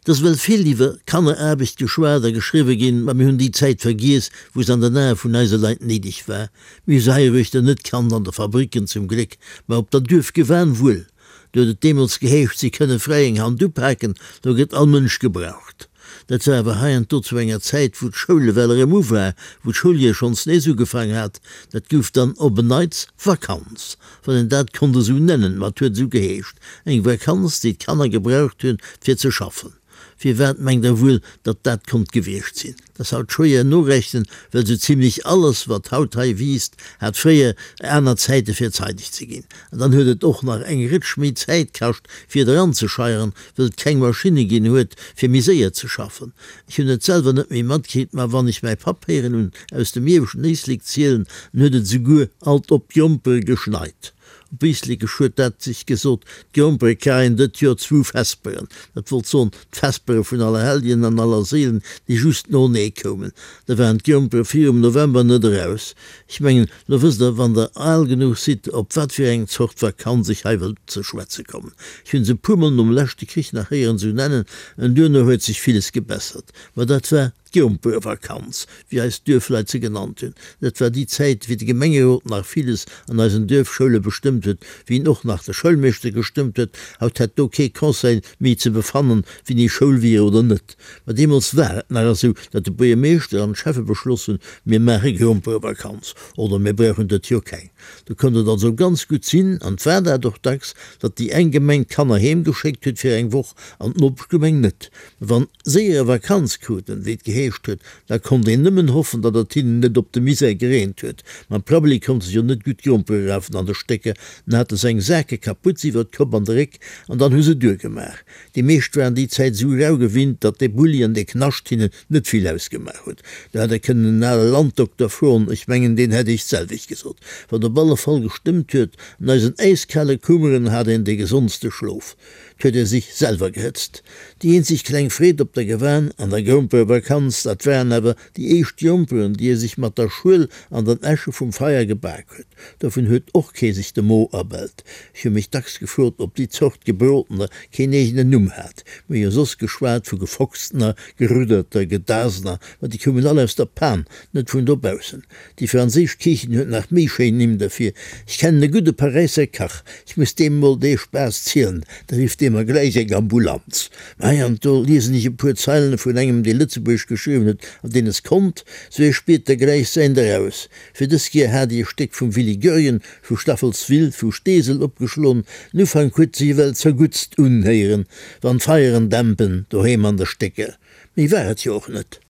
Et ass ewell vill iwwer Kanneraarbecht geschwat a geschriwwe ginn, ma mir hunn déi Zäit vergiess, wou se an den Ae vun eise Leit néideg war. Mir hu se heiruechter net kannt, an de Fabricken zum Gléck, ma op der Duerfgewan wuel. Do huet et deemools geheescht, si kënne fräi eng Hand upaken, do gëtt all Mënsch gebraucht. Dat war awer heiansdo zu enger Zäit, wou d'Schoul ewell erëm u war, wou d'Schouljoer schonns nees ugefaang hat. Dat gouf dann op en Neits Vakanz, wann een dat konnt esou nennen, ma et huet esou geheescht, eng Vakanz, déi d'Kanner gebraucht hunn, fir ze schaffen. Firwat mengt Der wuel, datt dat konnt gewiescht sinn? Dat ass haut schwéier norechnen, well esou zimlech alles, wat haut hei wiisst, hat fréier aner Zäite fir zeideg ze ginn. An dann huet et och nach eng Rëtsch méi Zäit kascht, fir et eranzescheieren, wëll et keng Maschinne ginn huet, fir méi séier ze schaffen. Ech hunn et selwer net méi matkritt, ma wann ech mäi Papp héieren hunn aus dem ieweschten Éislek zielen, dann huet et esouguer alt op d'Grompere geschneit. Op Éislekesch huet dat sech gesot, D'Grompere kréien dët Joer zwou Vesperen. Dat wollt soen, d'Vespere vun Allerhelljen an Allerséilen, déi just noenee koumen. Da waren d'Grompere virum November net eraus. Ech mengen, lo wësst Der, wann Der al genuch sidd, op wat fir eng Zort Vakanz ech hei wëll ze schwätze kommen. Ech hunn se e puermol nom leschte Krich nach héieren esou nennen, en duerno huet sech villes gebessert. Ma dat war. D'Gromperevakanz, wéi eis Duerfleit se genannt hunn, dat war déi Zäit, wéi de Gemengerot nach villes an eisen Duerfschoule bestëmmt huet, wéi en och nach de Schoulmeeschter gestëmmt huet. Haut hätt do kee Conseil méi ze befannen, wéini Schoul wier oder net. Ma deemools war et nach esou, datt de Buergermeeschter an d'Schäffe beschloss hunn, Mir maache Gromperevakanz oder mir brauchen dët Joer keng. Do konnt et also ganz gutt sinn, an 't war dat och dacks, datt déi eng Gemeng d'Kanner heem geschéckt huet fir eng Woch an d'Nopeschgemeng net. Wann séiere Vakanz kruten, wéi et geheescht huet, da konnt een nëmmen hoffen, datt et hinnen net op de Misär gereent huet. Mam Prabbeli konnte se jo net gutt Grompere rafen an de Stécker, dann hate se eng Sake Kaputz iwwer d'Kopp an de Réck an dann hu se duergemaach. Déi meescht waren déi Zäit esou rau gewinnt, datt dee Bulli an dee Knascht hinnen net vill ausgemaach huet. Do hätt Der kënnen en ale Landdokter froen, ech mengen, deen hätt Iech d'selwecht gesot. Wat op alle Fall gestëmmt huet, An eisen äiskale Kummeren hat een dee gesondste Schlof. 't huet e sich selwer gehëtzt. Déi eenzeg kleng Freed op der Gewan an der Gromperevakanz, dat waren awer déi éischt Gromperen, déi e sich mat der Schuel an den Äsche vum Feier gebak huet. Dovun huet och kee sich de Mo erbellt. Ech hu mech dacks gefrot, ob déi Zort Gebrotener keen eegenen Numm hat. Mir hu jo soss geschwat vu Gefochstener, Gerudderter, Gedasener, ma déi koumen all aus der Pan, net vun dobaussen. Déi franséisch Kichen huet nach méi schéin Nimm derfir. Ech kennen e gudde Paräisser Kach, ech muss deem mol dee Spaass zielen, da rifft dee mer gläich eng Ambulanz. Mä hei an do liesen ech e puer Zeilen vun engem, dee Lëtzebuergesch geschriwwen huet an deen es konnt, sou hie spiert da gläich säint eraus. Fir dës Kier hat ech e Stéck vum Willy Goergen vu Staffelswill vu Steesel opgeschloen. Den Ufank huet sech ewell zerguttst unhéieren, wann d'Feieren dämpen doheem an de Stécker. Méi war et jo och net.